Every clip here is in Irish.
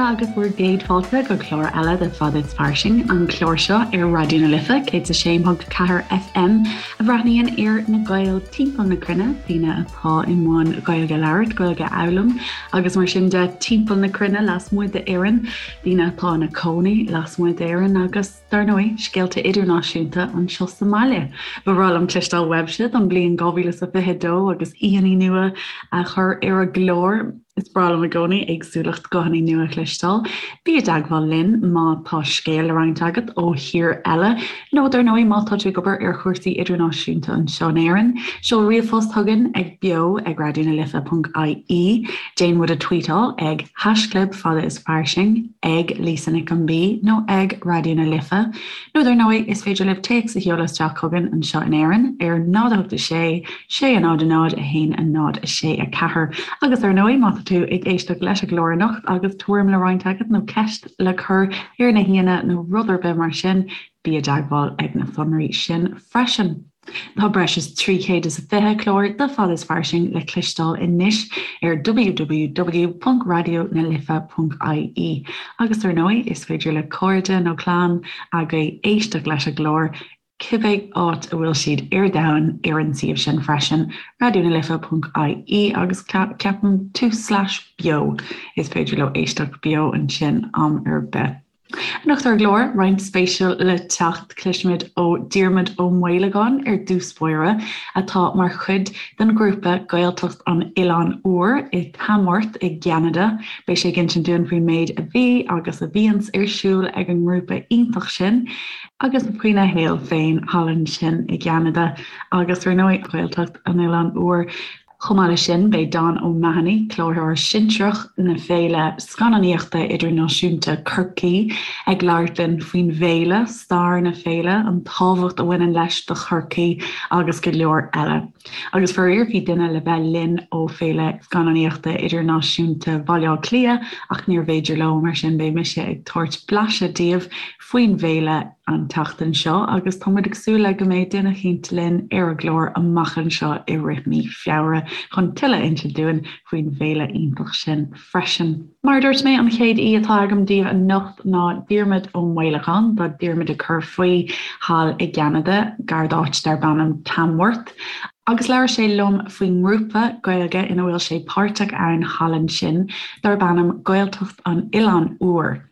agus bhur gcéad fáilte go clár eile de Fada is Fairsing, an clár seo ar Raidió na Life 106.4 FM a bhreathnaíonn ar na Gaeil timpeall na cruinne, daoine atá i mbun Gaeilge a labhairt, Gaeilge a fhoghlaim agus mar sin de timpeall na cruinne lasmuigh d'Éirinn, daoine atá ina cónaí lasmuigh d'Éirinn agus. Dar ndóigh, scéalta idirnáisiúnta anseo sa mbaile. Ba bhreá liom cloisteáil uaibhse don bhliain 2022 agus aíonna nua a chur ar an gclár. Is breá liom i gcónaí éagsúlacht guthanna nua a chloisteáil. Bí i dteagmháil linn má tá scéal le roinnt agat ó thír eile, nó dar ndóigh má tá tú ag obair ar chúrsaí idirnáisiúnta anseo in Éirinn. Seol ríomhphost chugainn ag beo ag raidionalife.ie. Déan muid a tweetáil ag haischlib fada is fairsing. ag Lisa Nic an B nó ag Raidió na Life, nó dar ndóigh is féidir libh téacs a sheoladh isteach chugainn anseo in Éirinn ar 0 8 6 6 0 0 1 0 6 4. Agus ar ndóigh má tá tú ag éisteacht leis an gclár anocht agus tuairim le roinnt agat nó ceist le cur ar na haíonna nó rud ar bith mar sin, bí i dteagmháil ag na sonraí sin freisin. Tá breis is 320 clár de Fada is Fairsing le cloisteáil anois ar www.radionalife.ie agus ar ndóigh is féidir le cairde nó clann agaibh éisteacht leis an gclár cibé áit a bhfuil siad ar domhan ar an suíomh sin freisin, radionalife.ie agus ceapaim tús slash beo is féidir leo éisteacht beo ansin am ar bith. Anocht ar an gclár, roinnt spéisiúil le teacht, cloisfimid ó Diarmuid Ó Maolagáin ar dtús báire, atá mar chuid den ghrúpa Gaeltacht an Oileáin Úir i Tamworth i gCeanada. Beidh sé ag insint dúinn faoin méid a bhí agus a bhíonns ar siúl ag an ngrúpa iontach sin, agus faoina shaol féin thall ansin i gCeanada agus ar ndóigh Gaeltacht an Oileáin Úir. Chomh maith leis sin, beidh Don O'Mahony, Cláraitheoir Sinsearach na Féile Scannánaíochta Idirnáisiúnta Chorcaí, ag labhairt linn faoin bhféile, stair na féile, an tábhacht a bhaineann leis do Chorcaigh agus go leor eile. Agus faraor bhí duine le bheith linn ó Féile Scannánaíochta Idirnáisiúnta Bhaile Átha Cliath ach níorbh fhéidir leo, mar sin beidh mise ag tabhairt blaiseadh daoibh faoin bhféile an tseachtain seo agus tá muid ag súil le go mbeidh duine eicínt linn ar an gclár amach anseo i rith mí Feabhra chun tuilleadh a insint dúinn faoin bhféile iontach sin freisin. Mar a dúirt mé, an chéad aoi atá agam daoibh anocht ná Diarmuid Ó Maolagáin. Tá Diarmuid ag cur faoi thall i gCeanada, gar d'áit darb ainm Tamworth, agus labhair sé liom faoin ngrúpa Gaeilge ina bhfuil sé páirteach ann thall ansin darb ainm Gaeltacht an Oileáin Úir.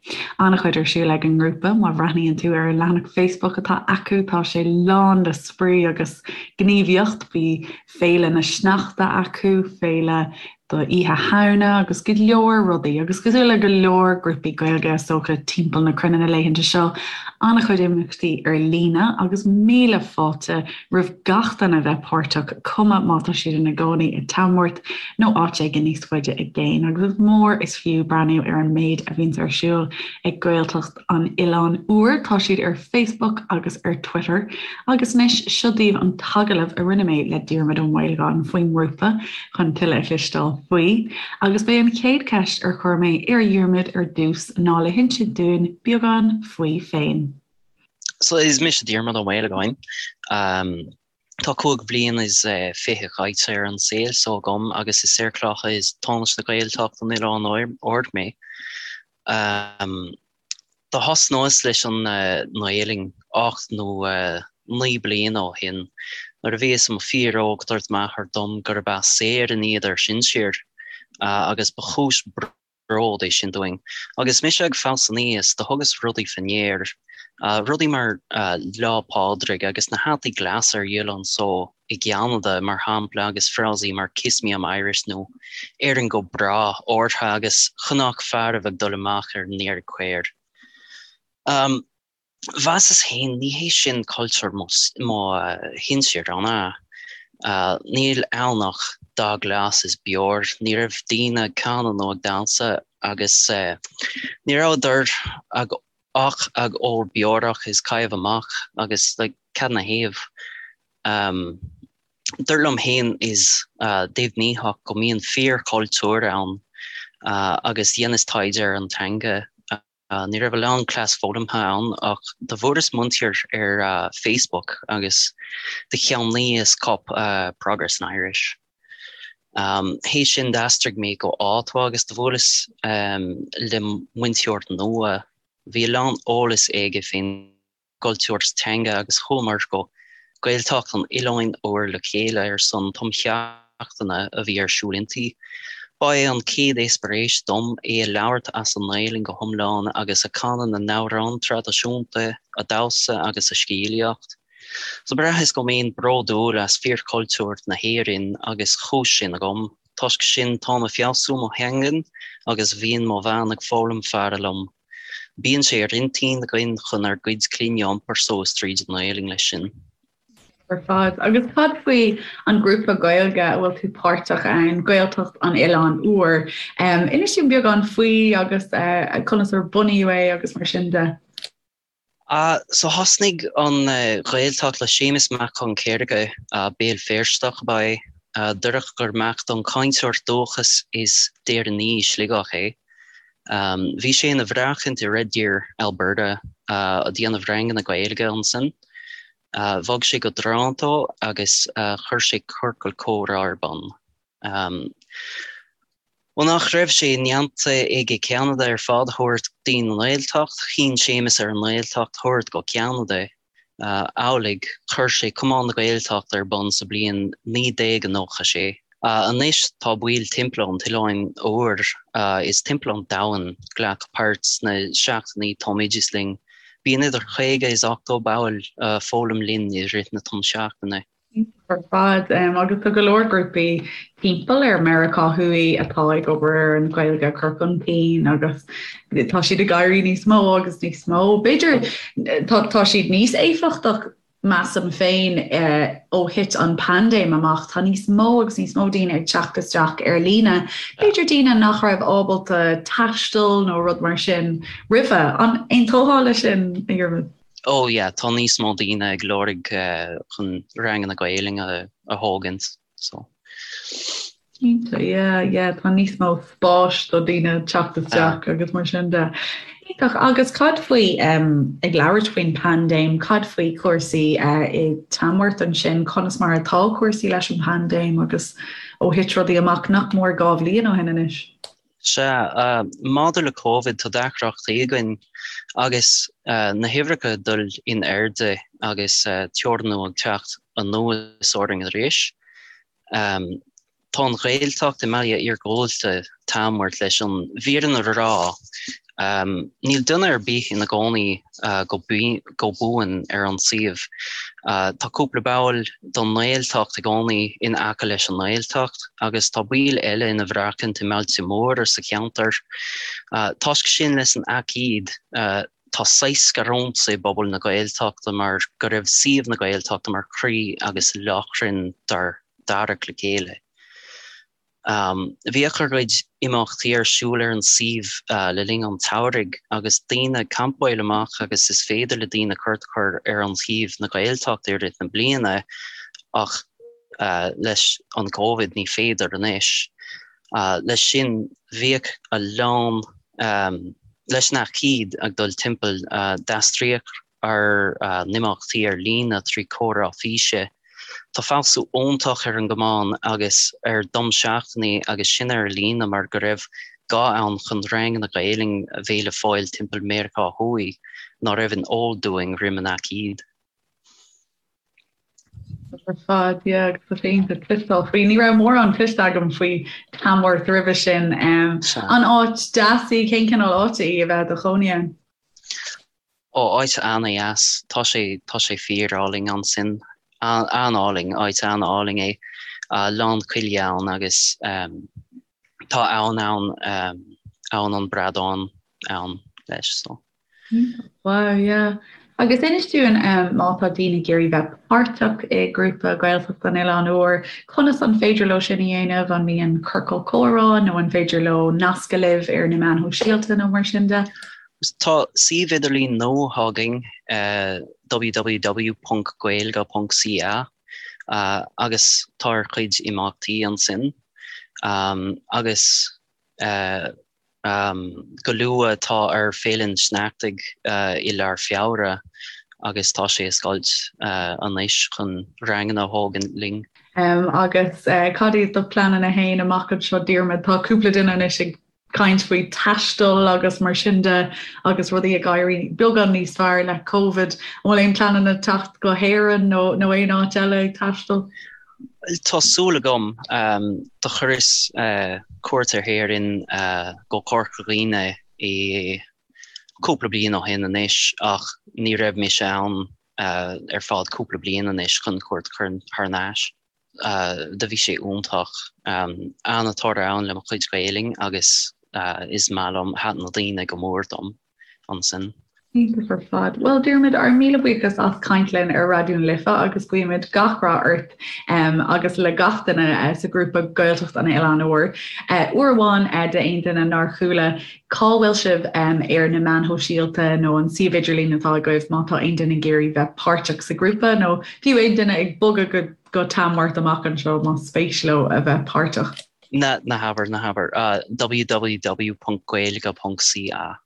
An-chuid ar siúl ag an ngrúpa, má bhreathnaíonn tú ar an leathanach Facebook atá acu, tá sé lán le spraoi agus gníomhaíocht, bhí féile na sneachta acu, féile do Oíche Shamhna agus go leor rudaí agus cosúil le go leor grúpaí Gaeilge is dócha timpeall na cruinne na laethanta seo, an-chuid imeachtaí ar líne agus míle fáilte roimh gach duine a bheith páirteach, cuma má tá siad ina gcónaí i Tamworth nó áit éigin níos faide i gcéin, agus is mór is fiú breathnú ar an méid a bhíonns ar siúl ag Gaeltacht an Oileáin Úir. Tá siad ar Facebook agus ar Twitter. Agus anois, seo daoibh an t-agallamh a rinne mé le Diarmuid Ó Maolagáin faoin ngrúpa chun tuilleadh a chloisteáil faoi. Agus b'é an chéad cheist ar chuir mé ar Dhiarmuid ar dtús ná le hinsint dúinn beagán faoi féin. So is mise Diarmuid Ó Maolagáin. Tá 25 bhliain caite ar an saol so agam agus is ar Clocha is Tánaiste Ghaeltacht an Oileáin Úir mé. Do thosnaíos leis an nGaelainn 8 nó 9 bliana ó shin. Nuair a bhíos i mo fíor óg dúirt m'athair dom gurb as Éirinn iad ár sinsir agus ba chúis bród é sin dúinn. Agus mise ag fás aníos, do thugas rudaí fá ndear, rudaí mar Lá Pádraig agus na hataí glasa ar dhíol anso i gCeanada, mar shampla, agus frásaí mar Kiss me I'm Irish nó Éirinn go bráth orthu agus chonac fearaibh ag dul amach ar an iarraidh caor. Mheasas féin, ní hé sin cultúr mo shinsir, an ea? Níl ann ach dath glas is beoir. Ní raibh daoine ag canadh nó ag damhsa agus ní rabhadar ach ag ól beorach is caitheamh amach agus like cad 'na thaobh? Dúrt liom féin is deimhnítheach go mbíonn fíor-chultúr ann agus dheineas taighde ar an teanga. Ní raibh a lán cleas foghlamtha ann ach do bhfuaireas múinteoir ar Facebook agus do cheannaíos cóip Progress in Irish. Théis sin d'aistrigh mé go Ottawa agus do bhuaileas le muinteoir nua. Bhí a lán eolas aige fén gcultúr is teanga agus chuamar go Gaeltacht an Oileáin Úir le chéile ar son tumsheachtaine a bhí ar siúl inti. Ba é an chéad eispéireas dom é a labhairt as an nGaelainn go hiomlán agus a canadh na n-amhrán traidisiúnta, a damhsa agus a scéalaíocht. So braitheas go mbeinn bródúil as fíorchultúr na hÉireann agus chúis sin agam. Toisc sin táim a feabhsú mo theangain agus bhíonn mo bhean ag foghlaim faire liom. Bíonn sé ar intinn againn chun ár gcuid clainne a iompar suas tríd an nGaelainn leis sin. Ar fad. Agus cad faoi an grúpa Gaeilge a bhfuil tú páirteach ann, Gaeltacht an Oileáin Úir? Inis dúinn beagán faoi agus conas ar bunaíodh é agus mar sin de. So thosnaigh an Ghaeltacht le Séamus Mac Con Céirge, Béal Feirsteach ab ea é. Dúradh gur mac don cainteoir dúchas is d'Éireannaí i Sligeach é. Bhí sé ina bhreachaint i Red Deer, Alberta, a déanamh ranganna Gaeilge ansin. Bhog sé go Toronto agus chuir sé ciorcal comhrá ar bun. Ó nach raibh sé ndéanta aige Ceanada ar fad a thabhairt dtí'n nGaeltacht, chinn Séamus ar an nGaeltacht a thabhairt go Ceanada. Amhlaidh, chuir sé Cumann na Gaeltachta ar bun sa bliain 1996. Anois tá baill timpeall an tOileáin Úir is timpeall an domhain glacadh páirt sna seachtainí tumoideachais linn. Bíonn idir 50 is 80 ball foghlaim linn i rith na tumsheachtaine. Ar fad. Agus tá go leor grúpaí timpeall ar Meiriceá Thuaidh atá ag obair ar an Ghaeilge a chur chun cinn agus tá siad ag éirí níos mó agus níos mó. B'fhéidir tá tá siad níos éifeachtach measaim féin ó thit an paindéim amach. Tá níos mó agus níos mó daoine ag teacht isteach ar líne. B'fhéidir daoine nach raibh ábalta taisteal nó rud mar sin roimhe. An aontófá leis sin, a Dhiarmaid? Oh yeah, tá níos mó daoine ag lorg chun ranganna Gaelainne a thógaint, so. Cinnte, yeah, yeah, tá níos mó spáis do daoine teacht isteach agus mar sin de. Iontach, agus cad faoi, um, ag labhairt faoin paindéim, cad faoi cúrsaí uh, i Tamworth ansin, conas mar atá cúrsaí leis an paindéim agus ó thit rudaí amach nach mór 2 bhliain ó shin anois? Sea, maidir le Covid, tá deacrachtaí againn agus na huimhreacha ag dul in airde agus teorannú ag teacht anuas orainn arís. Tá an Ghaeltacht i mbaile iargúlta Tamworth leis an bhfírinne a rá. Níl duine ar bith ina gcónaí go buan ar an suíomh. Tá cúpla ball don nGaeltacht i gcónaí in aice leis an nGaeltacht agus tá baill eile ina bhreachaint i mbailte móra sa cheantar. Toisc sin leis an aicíd tá saghas scarúint i bpobal na Gaeltachta mar go raibh suíomh na Gaeltachta mar chroí agus lóchrann dár dtarrac le chéile. Bhíodh ár gcuid imeachtaí ar siúl ar an suíomh le linn an tsamhraidh agus daoine ag campáil amach agus is féidir le daoine cuairt a chur ar an shuíomh na Gaeltachta i rith na bliana ach leis an Covid ní féidir anois. Leis sin bhíodh a lán leis an aicíd ag dul timpeall d'aistríodh ár n-imeachtaí ar líne trí comhrá físe. Tá feabhsú iontach ar an gcumann agus ar dtumsheachtainí agus sin ar líne mar go raibh gá ann chun ranganna Gaelainn a bheith le fáil timpeall Meiriceá Thuaidh ná raibh in eol dúinn roim an aicíd. Ar fad, yeah, agus tá sé iontach cloisteáil faoi. Ní raibh mórán cloiste agam faoi Tamworth roimhe sin. An áit deas í? Cén cineál áite í a bheith i do chónaí ann? Ó, áit an-dheas. Tá sé, tá sé fíor-álainn ansin. An-álainn, áit an-álainn é. Lán coille ann agus tá abhainn ann, abhainn an Bradáin ann leis, so. Wow, yeah. Agus inis dúinn má tá daoine ag iarraidh bheith páirteach i grúpa Gaeltacht an Oileáin Úir, conas an féidir leo sin a dhéanamh? An mbíonn ciorcal comhrá nó an féidir leo nascadh libh ar na meáin shóisialta nó mar sin de? Tá suíomh idirlín nua againn, www.gaeilge.ca, agus tá ár gcuid imeachtaí ansin. Agus go luath tá ár Féile an tSneachtaidh i lár Feabhra agus tá sé oscailte anois chun ranganna a thógaint linn. Agus cad iad do pleananna fhéin amach anseo Diarmuid? Tá cúpla duine anois ag caint faoi taisteal agus mar sin de agus rudaí ag éirí beagán níos fearr le Covid. An bhfuil aon pleananna teacht go hÉirinn nó nó aon áit eile ag taisteal? Tá súil agam. Do chuireas cuairt ar hÉirinn go Corca Dhuibhne i cúpla bliain ó shin anois ach ní raibh mise ann ar fad cúpla bliain anois chun cuairt a chur thar n-ais. Do bhí sé iontach. An-toradh ann le mo chuid Gaelainn agus is maith liom, thaitin na daoine go mór dom ansin. Iontach ar fad. Bhuel Diarmuid, ár míle buíochas as caint linn ar Raidió na Life agus guímid gach rath ort agus le gach duine sa ghrúpa Gaeltacht an Oileáin Úir. Uair amháin d'aon duine nár chuala, cá bhfuil sibh ar na meáin shóisialta nó an suíomh idirlín atá agaibh má tá aon duine ag iarraidh bheith páirteach sa ghrúpa nó fiú aon duine ag bogadh go go Tamworth amach anseo más spéis leo a bheith páirteach. Ná ná habair, ná habair. www.gaeilge.ca.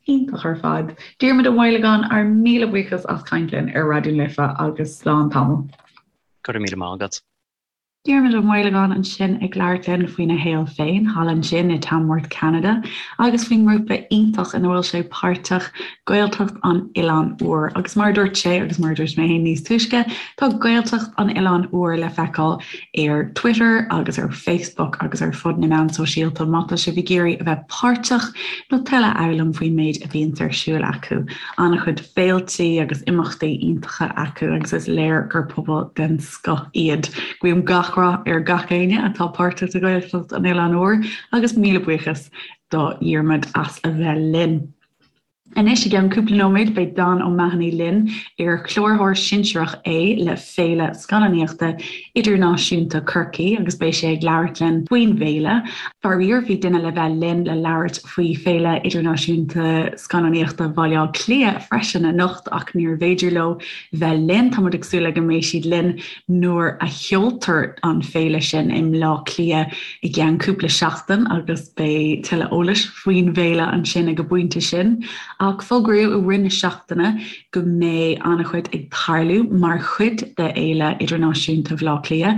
Iontach ar fad. Diarmuid Ó Maolagáin, ár míle buíochas as caint linn ar Raidió na Life agus slán tamall. Go raibh míle maith agat. Diarmuid Ó Maolagáin ansin ag labhairt linn faoina shaol féin thall ansin i Tamworth, Ceanada agus faoin ngrúpa iontach ina bhfuil sé páirteach, Gaeltacht an Oileáin Úir. Agus mar a dúirt sé, agus mar a dúirt mé féin níos túisce, tá Gaeltacht an Oileáin Úir le feiceáil ar Twitter agus ar Facebook agus ar fud na meán sóisialta má tá sibh ag iarraidh a bheith páirteach nó tuilleadh a fhoghlaim faoin méid a bhíonns ar siúl acu. An-chuid féiltí agus imeachtaí iontacha acu agus is léir gur pobal den scoth iad. Guím gach rath ar gach éinne atá páirteach i Gaeltacht an Oileáin Úir agus míle buíochas do Dhiarmuid as a bheith linn. Anois i gceann cúpla nóiméad beidh Dan O'Mahony linn, ar cláraitheoir sinsearach é le Féile Scannánaíochta Idirnáisiúnta Chorcaí agus beidh sé ag labhairt linn faoin bhféile. Faraor bhí duine le bheith linn le labhairt faoi Féile Idirnáisiúnta Scannánaíochta Bhaile Átha Cliath freisin anocht ach níorbh fhéidir leo bheith linn. Tá muid ag súil le go mbeidh siad linn nuair a sheoltar an féile sin i mBleá Cliath i gceann cúpla seachtain agus beidh tuilleadh eolais faoin bhféile ansin ag an bpointe sin. Ach fógraíodh i rith na seachtaine go mbeidh an-chuid ag tarlú mar chuid de Fhéile Idirnáisiúnta Bhaile Átha Cliath,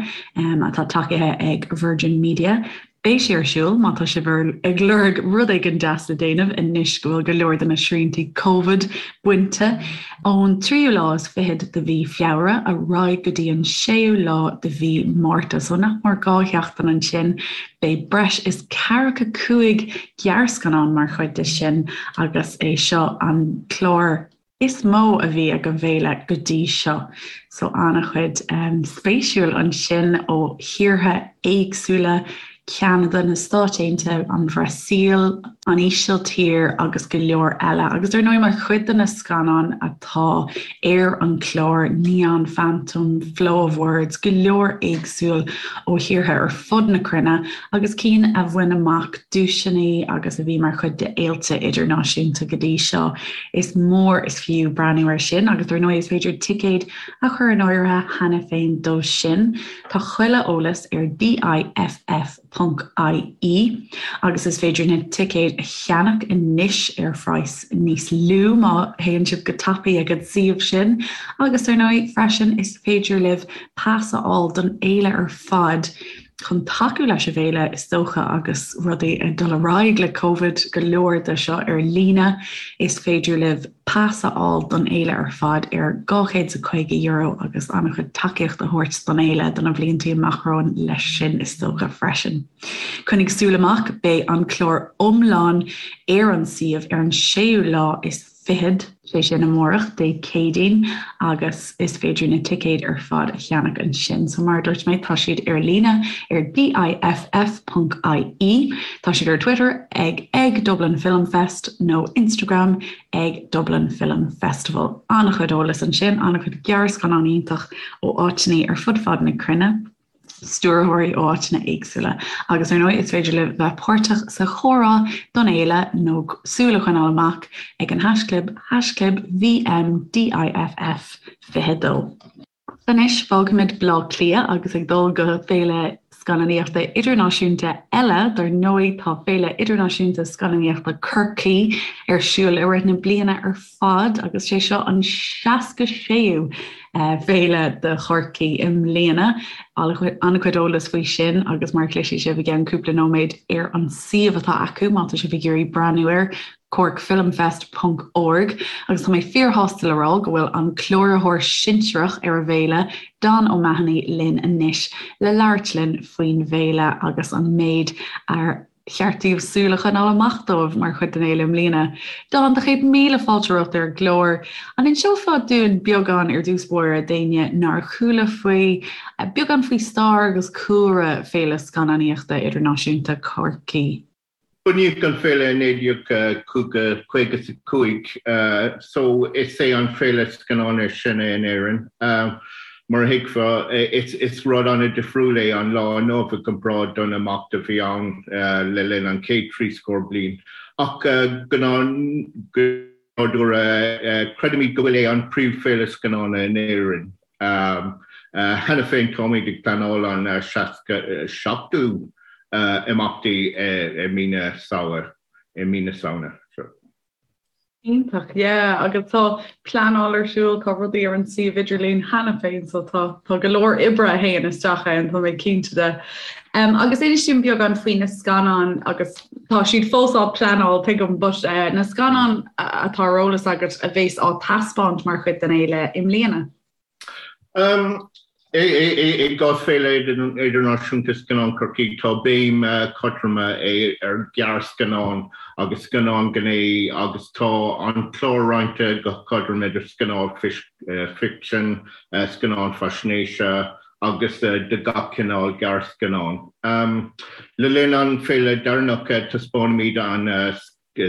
atá tacaithe ag Virgin Media. Beidh sé ar siúl má tá sibh ag lorg rud éigin deas le déanamh anois go bhfuil go leor de na sriantaí Covid bainte. Ón tríú lá is fichead de mhí Feabhra ar aghaidh go dtí an séú lá de mhí Márta, so nach mór 2 sheachtain ansin, beidh breis is ceathracha 5 gearrscannán mar chuid de sin agus é seo an clár is mó a bhí ag an bhféile go dtí seo. So an-chuid spéisiúil ansin ó thíortha éagsúla, Ceanada, na Stáit Aontaithe, an Bhrasaíl, an Ísiltír agus go leor eile. Agus ar ndóigh mar chuid de na scannáin atá ar an chlár, Neon Phantom, Flow of Words, go leor éagsúil ó thíortha ar fud na cruinne agus cinn a bhain amach duaiseanna agus a bhí mar chuid de fhéilte idirnáisiúnta go dtí seo. Is mór is fiú breathnú air sin agus ar ndóigh is féidir ticéid a chur in áirithe cheana féin dó sin. Tá chuile eolas ar DIFF ponc IE agus is féidir na ticéid a cheannach anois ar phraghas níos lú má théann sibh go tapaidh ag an suíomh sin agus ar ndóigh freisin is féidir libh pas a fháil don fhéile ar fad chun tacú leis an bhféile is dócha agus rudaí ag dul ar aghaidh le Covid, go leor de seo ar líne, is féidir libh pas a fháil don fhéile ar fad ar €250 agus an-chuid tacaíocht a thabhairt don fhéile do na blianta amach romhainn leis sin is dócha freisin. Coinnigh súil amach, beidh an clár iomlán ar an suíomh ar an séú lá is fichead, sé sin amárach, Dé Céadaoin, agus is féidir na ticéid ar fad a cheannach ansin. So mar a dúirt mé, tá siad ar líne ar DIFF ponc IE. Tá siad ar Twitter ag ag Dublin Film Fest nó Instagram ag Dublin Film Festival. An-chuid eolas ansin, an-chuid gearrscannán iontach ó áiteanna ar fud fad na cruinne. stiúrthóirí ó áiteanna éagsúla agus ar ndóigh is féidir libh bheith páirteach sa chomhrá don fhéile nó súil a choinneáil amach ag an haischlib haischlib VMDIFF 22. Anois fágfaimid Baile Átha Cliath agus ag dul go Féile. scannánaíochta idirnáisiúnta eile. Dar ndóigh, tá Féile Idirnáisiúnta Scannánaíochta Chorcaí ar siúl i rith na bliana ar fad agus sé seo an 66ú féile do Chorcaí i mbliana. An-chuid eolas faoi sin agus mar a chloisfidh sibh i gceann cúpla nóiméad ar an suíomh atá acu má tá sibh ag iarraidh breathnú air, corkfilmfest ponc org agus tá mé fíorshásta le rá go bhfuil an cláraitheoir sinsearach ar an bhféile, Don O'Mahony, linn anois le labhairt linn faoin bhféile agus an méid ar cheart daoibh súil a choinneáil amach dóibh mar chuid den fhéile i mbliana. Don, do chéad míle fáilte romhat ar an gclár. An inseofá dúinn beagán ar dtús báire d'éinne nár chuala faoi, beagán faoi stair agus cúlra Féile Scannánaíochta Idirnáisiúnta Chorcaí? Bunaíodh an féile i 1955 so is é an féile scannán is sine in Éirinn. Mar a thuigfeá, is rud an-difriúil é an lá inniu i gcomparáid don imeacht a bhí ann le linn an chéad trí scór bliain. Ach go nádúrtha, creidimid go bhfuil é an príomhfhéile scannáin in Éirinn. Cheana féin táimid ag pleanáil an 67ú imeachtaí i mí na Samhna. Iontach, yeah, agus tá pleanáil ar siúl, tá rudaí ar an suíomh idirlín cheana féin so tá tá go leor oibre a théann isteach ann, tá mé cinnte de. Um, agus inis dúinn beagán faoi na scannáin agus tá siad fós á pleanáil tuigim, but uh, na scannáin atá ar eolas agat a bheas á taispeáint mar chuid den fhéile i mbliana. I gcás Féile Idirnáisiúnta Scannán Chorcaí, tá béim chothrom ar ghearrscannáin agus scannáin gné agus tá an clár roinnte go cothrom idir scannáin ficsin, scannáin faisnéise agus de gach cineál gearrscannán. Le linn an féile deireanach, taispeánfaimid an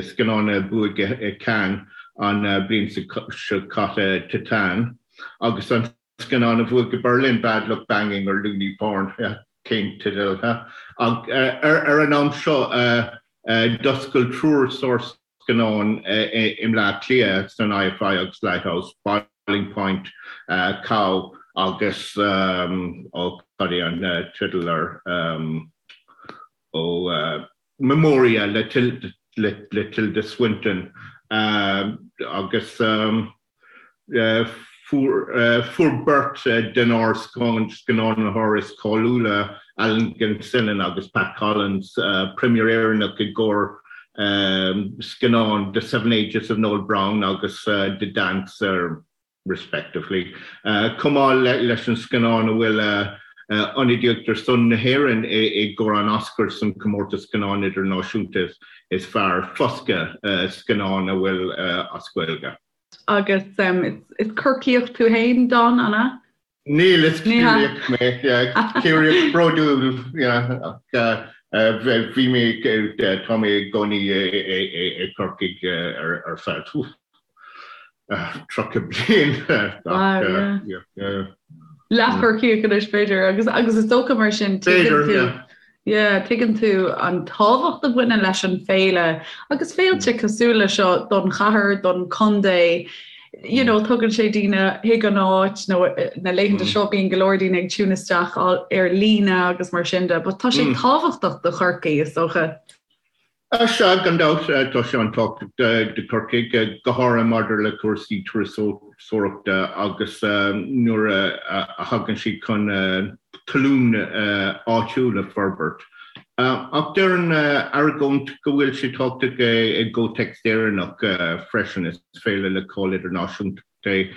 scannán a bhuaigh i Cannes an bhliain seo caite, Titane, agus an scannán a bhuaigh i Berlin, Bad Luck Banging or Loony Porn, cén teideal, huh? Ar an am seo, d'oscail triúr sárscannán i mBleá Cliath san IFI agus Lighthouse, Boiling Point, Cow agus, ó, cad é an teideal air, ó, Memoria le Tilda Swinton agus fuair beirt denár scannánaitheoirí is cáiliúla, Alan Gilsenan agus Pat Collins, première Éireannach i gcomhair scannán The Seven Ages of Noel Browne agus The Dancer. respectively. Chomh maith leis an scannán a bhfuil ionadaíocht ar son na hÉireann i gcomhair an Oscar san comórtas scannán idirnáisiúnta is fearr, Foscadh, scannán a bhfuil as Gaeilge. Agus is Corcaíoch tú féin, Don, an ea? Níl, is Ciarraíoch mé, Ciarraíoch bródúil, ach bhí mé, tá mé i gcónaí i gCorcaigh ar feadh 30 bliain. Leath-Chorcaíoch anois b'fhéidir, agus agus is dócha mar sin tuigeann tú yeah, tuigeann tú an tábhacht a bhaineann leis an féile agus féilte cosúil le seo don chathair, don chontae, you know, tugann sé daoine chuig an áit nó na laethanta seo bíonn go leor daoine ag tune isteach ar líne agus mar sin de, but tá sé tábhachtach do Chorcaigh is dócha. Sea, gan dabht, tá sé an-tábhachtach do Chorcaigh, go háirithe maidir le cúrsaí turasóireachta agus nuair a thagann siad chun tallann áitiúil a forbairt. Ach déarfainn argóint go bhfuil sé tábhachtach i gcomhthéacs Éireannach freisin, is féile le cáil idirnáisiúnta é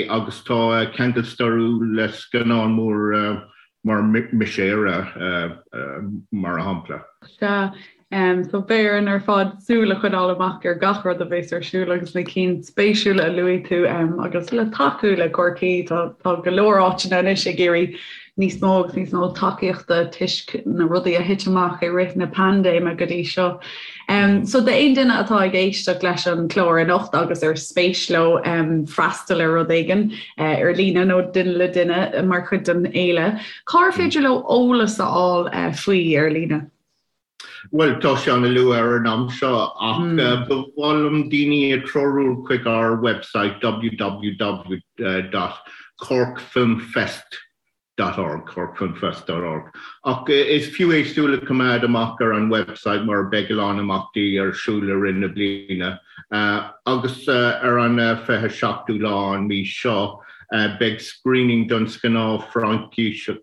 agus tá ceangal stairiúil le scannán mór mar Mise Éire, mar shampla. Sea. So beidh orainn ar fad súil a choinneáil amach ar gach rud a bheas ar siúl agus na cinn spéisiúla a luaigh tú agus le tacú le Corcaigh tá tá go leor áiteanna anois ag iarraidh níos mó agus níos mó tacaíochta toisc na rudaí a thit amach i rith na paindéime go dtí seo. So d'aon duine atá ag éisteacht leis an chlár anocht agus ar spéis leo freastal ar rud éigin ar líne nó duine le duine mar chuid den fhéile, cár féidir leo eolas a fháil faoi ar líne? Bhuel, tá sé an-luath ar an am seo ach ba mhaith liom daoine a treorú chuig ár website www.corkfilmfest. dot org, corkfilmfest dot org. Ach is fiú é súil a choimeád amach ar an website mar beidh a lán imeachtaí ar siúl i rith na bliana. Agus ar an 27ú lá an mí seo beidh screening don scannán Fraincíseach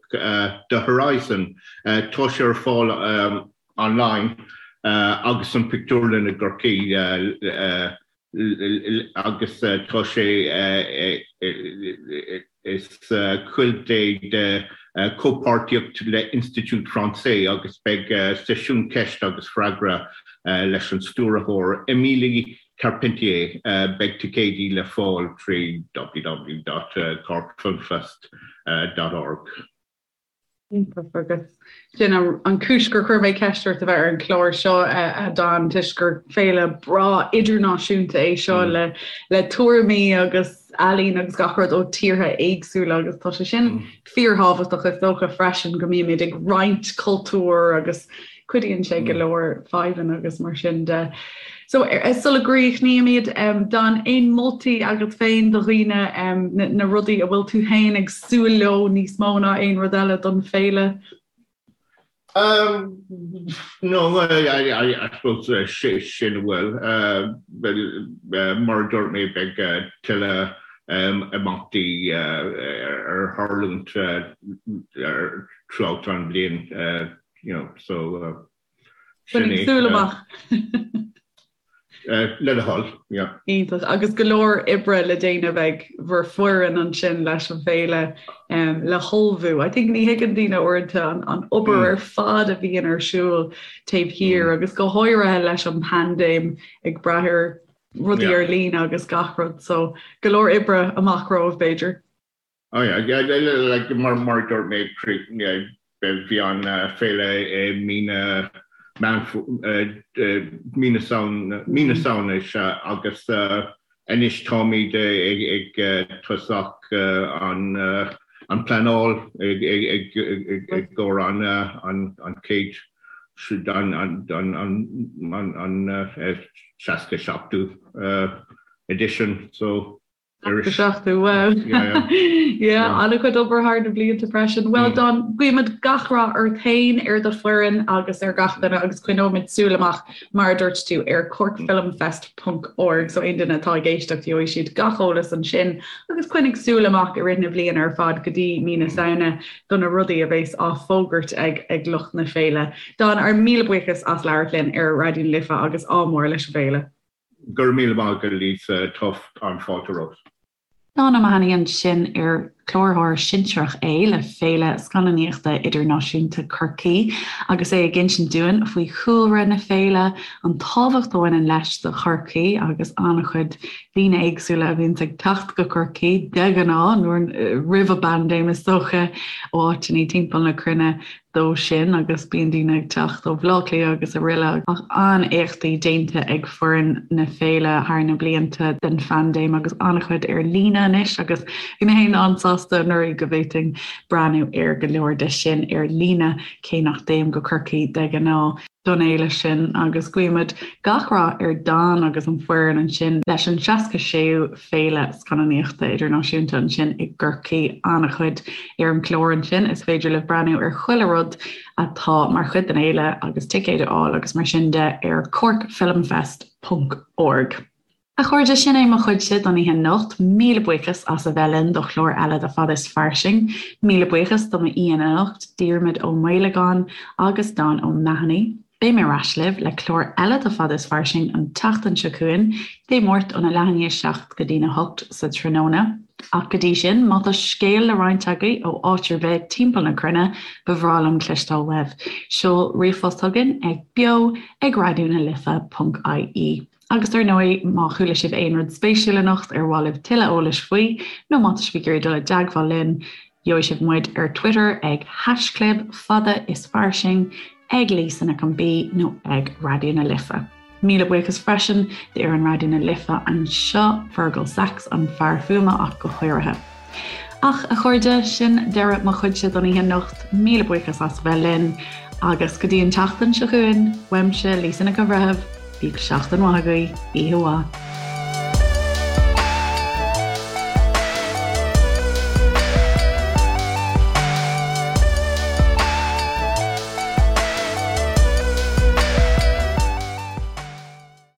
The Horizon. Tá sé ar fáil online agus san pictiúrlann i gCorcaigh. agus tá sé is cuid é de chomhpháirtíocht le Institut Français agus beidh seisiún ceist agus freagra leis an stiúrthóir Émilie Carpentier. Beidh ticéidí le fáil trí www.corkfilmfest.org. Iontach agus sin an chúis gur chuir mé ceist ort a bheith ar an chlár seo a Dan toisc gur féile breá idirnáisiúnta é seo mm. le le tuairimí agus ealaín agus gach rud ó tíortha éagsúla agus tá sé sin mm. fíorthábhachtach is dócha freisin go mbímid ag roinnt cultúr agus Cuidíonn sé go leor fadhbanna agus mar sin de. So sula gcríochnaímid, Dan, aon moltaí agat féin do dhaoine, na rudaí a bhfuil tú féin ag súil leo níos mó ná aon rud eile don féile? Um, no, I, I, I suppose uh, sin a bhfuil. Uh, uh, mar a dúirt mé beidh uh, tuilleadh um, imeachtaí uh, ar tharlúint uh, throughout an bhliain. Uh, you know, so uh, sin é. Súil amach. Uh, le do thoil, yeah. Iontach. Agus go leor oibre le déanamh ag bhur foireann ansin leis an bhféile um, le hullmhú. I think ní thuigeann daoine uaireanta an, an obair mm. ar fad a bhíonn ar siúl taobh thiar mm. agus go háirithe leis an paindéim ag brath ar rudaí yeah. ar líne agus gach rud, so go leor oibre amach romhaibh b'fhéidir. Oh yeah, yeah, like mar mar a dúirt mé bhí an féile i mí na mí na mí na Samhna is ea agus anois táimid ag tosach an an pleanáil ag ag ag gcomhair an an an chéad an an an an 67ú edition so 67ú, wow. Yeah, an-chuid obair thar na blianta freisin. Well Dan, guímid gach rath ort féin, ar do foireann agus ar gach duine agus coinneoimid súil amach, mar a dúirt tú, ar corkfilmfest.org so aon duine atá ag éisteacht gheobhaidh siad gach eolas ansin agus coinnigh súil amach i rith na bliana ar fad go dtí mí na Samhna do na rudaí a bheas á bhfógairt ag ag lucht na féile. Dan, ár míle buíochas as labhairt linn ar Raidió na Life agus ádh mór leis an bhféile. Go raibh míle maith agat Lisa, tá an-fháilte romhat. Dan O'Mahony ansin ar cláraitheoir sinsearach é le Féile Scannánaíochta Idirnáisiúnta Chorcaí agus é ag insint dúinn faoi chúlra na féile, an tábhacht a bhaineann leis do Chorcaí agus an-chuid daoine éagsúla a bhíonns ag teacht go Corcaigh de ghnáth, nuair roimh an bpaindéim is dócha, ó áiteanna timpeall na cruinne. dó sin agus bíonn daoine ag teacht ó Bhaile Átha Cliath agus araile ach an-éachtaí déanta ag foireann na féile thar na blianta den phaindéim agus an-chuid ar líne anois agus bhí mé féin an-sásta anuraidh go bhféadfainn breathnú ar go leor de sin ar líne cé nach dtéim go Corcaigh de ghnáth don fhéile sin agus guímid gach rath ar Dan agus an foireann ansin leis an 66ú Féile Scannánaíochta Idirnáisiúnta ansin i gCorcaigh. An-chuid ar an gclár ansin, is féidir libh breathnú ar chuile rud atá mar chuid den fhéile agus ticéid a fháil agus mar sin de ar corkfilmfest ponc org. A chairde, sin é mo chuidse don oíche anocht. Míle buíochas as a bheith linn do chlár eile de Fada is Fairsing. Míle buíochas do m'aíonna anocht, Diarmuid Ó Maolagáin agus Dan O'Mahony. Beidh mé ar ais libh le clár eile de Fada is Fairsing an tseachtain seo chugainn, Dé Máirt óna leath i ndiaidh 7 go dtína 8 sa tráthnóna. Ach go dtí sin, má tá scéal le roinnt agaibh ó áit ar bith timpeall na cruinne, ba bhreá liom cloisteáil uaibh. Seol ríomhphost chugainn ag beo ag raidió na life ponc ie. Agus ar ndóigh, má chuala sibh aon rud spéisiúil anocht ar mhaith libh tuilleadh eolais faoi, nó má tá sibh ag iarraidh dul i dteagmháil linn, gheobhaidh sibh muid ar Twitter ag haischlib fada is fairsing, ag Lisa Nic an B nó ag Raidió na Life. Míle buíochas freisin d'fhoireann Raidió na Life anseo, Fergal Sachs, an fear fuaime ach go háirithe. Ach, a chairde, sin deireadh mo chuidse don oíche anocht. Míle buíochas as a bheith linn agus go dtí an tseachtain seo chugainn, uaimse, Lisa Nic an Bhreithimh, bíodh seachtain mhaith agaibh, oíche mhaith.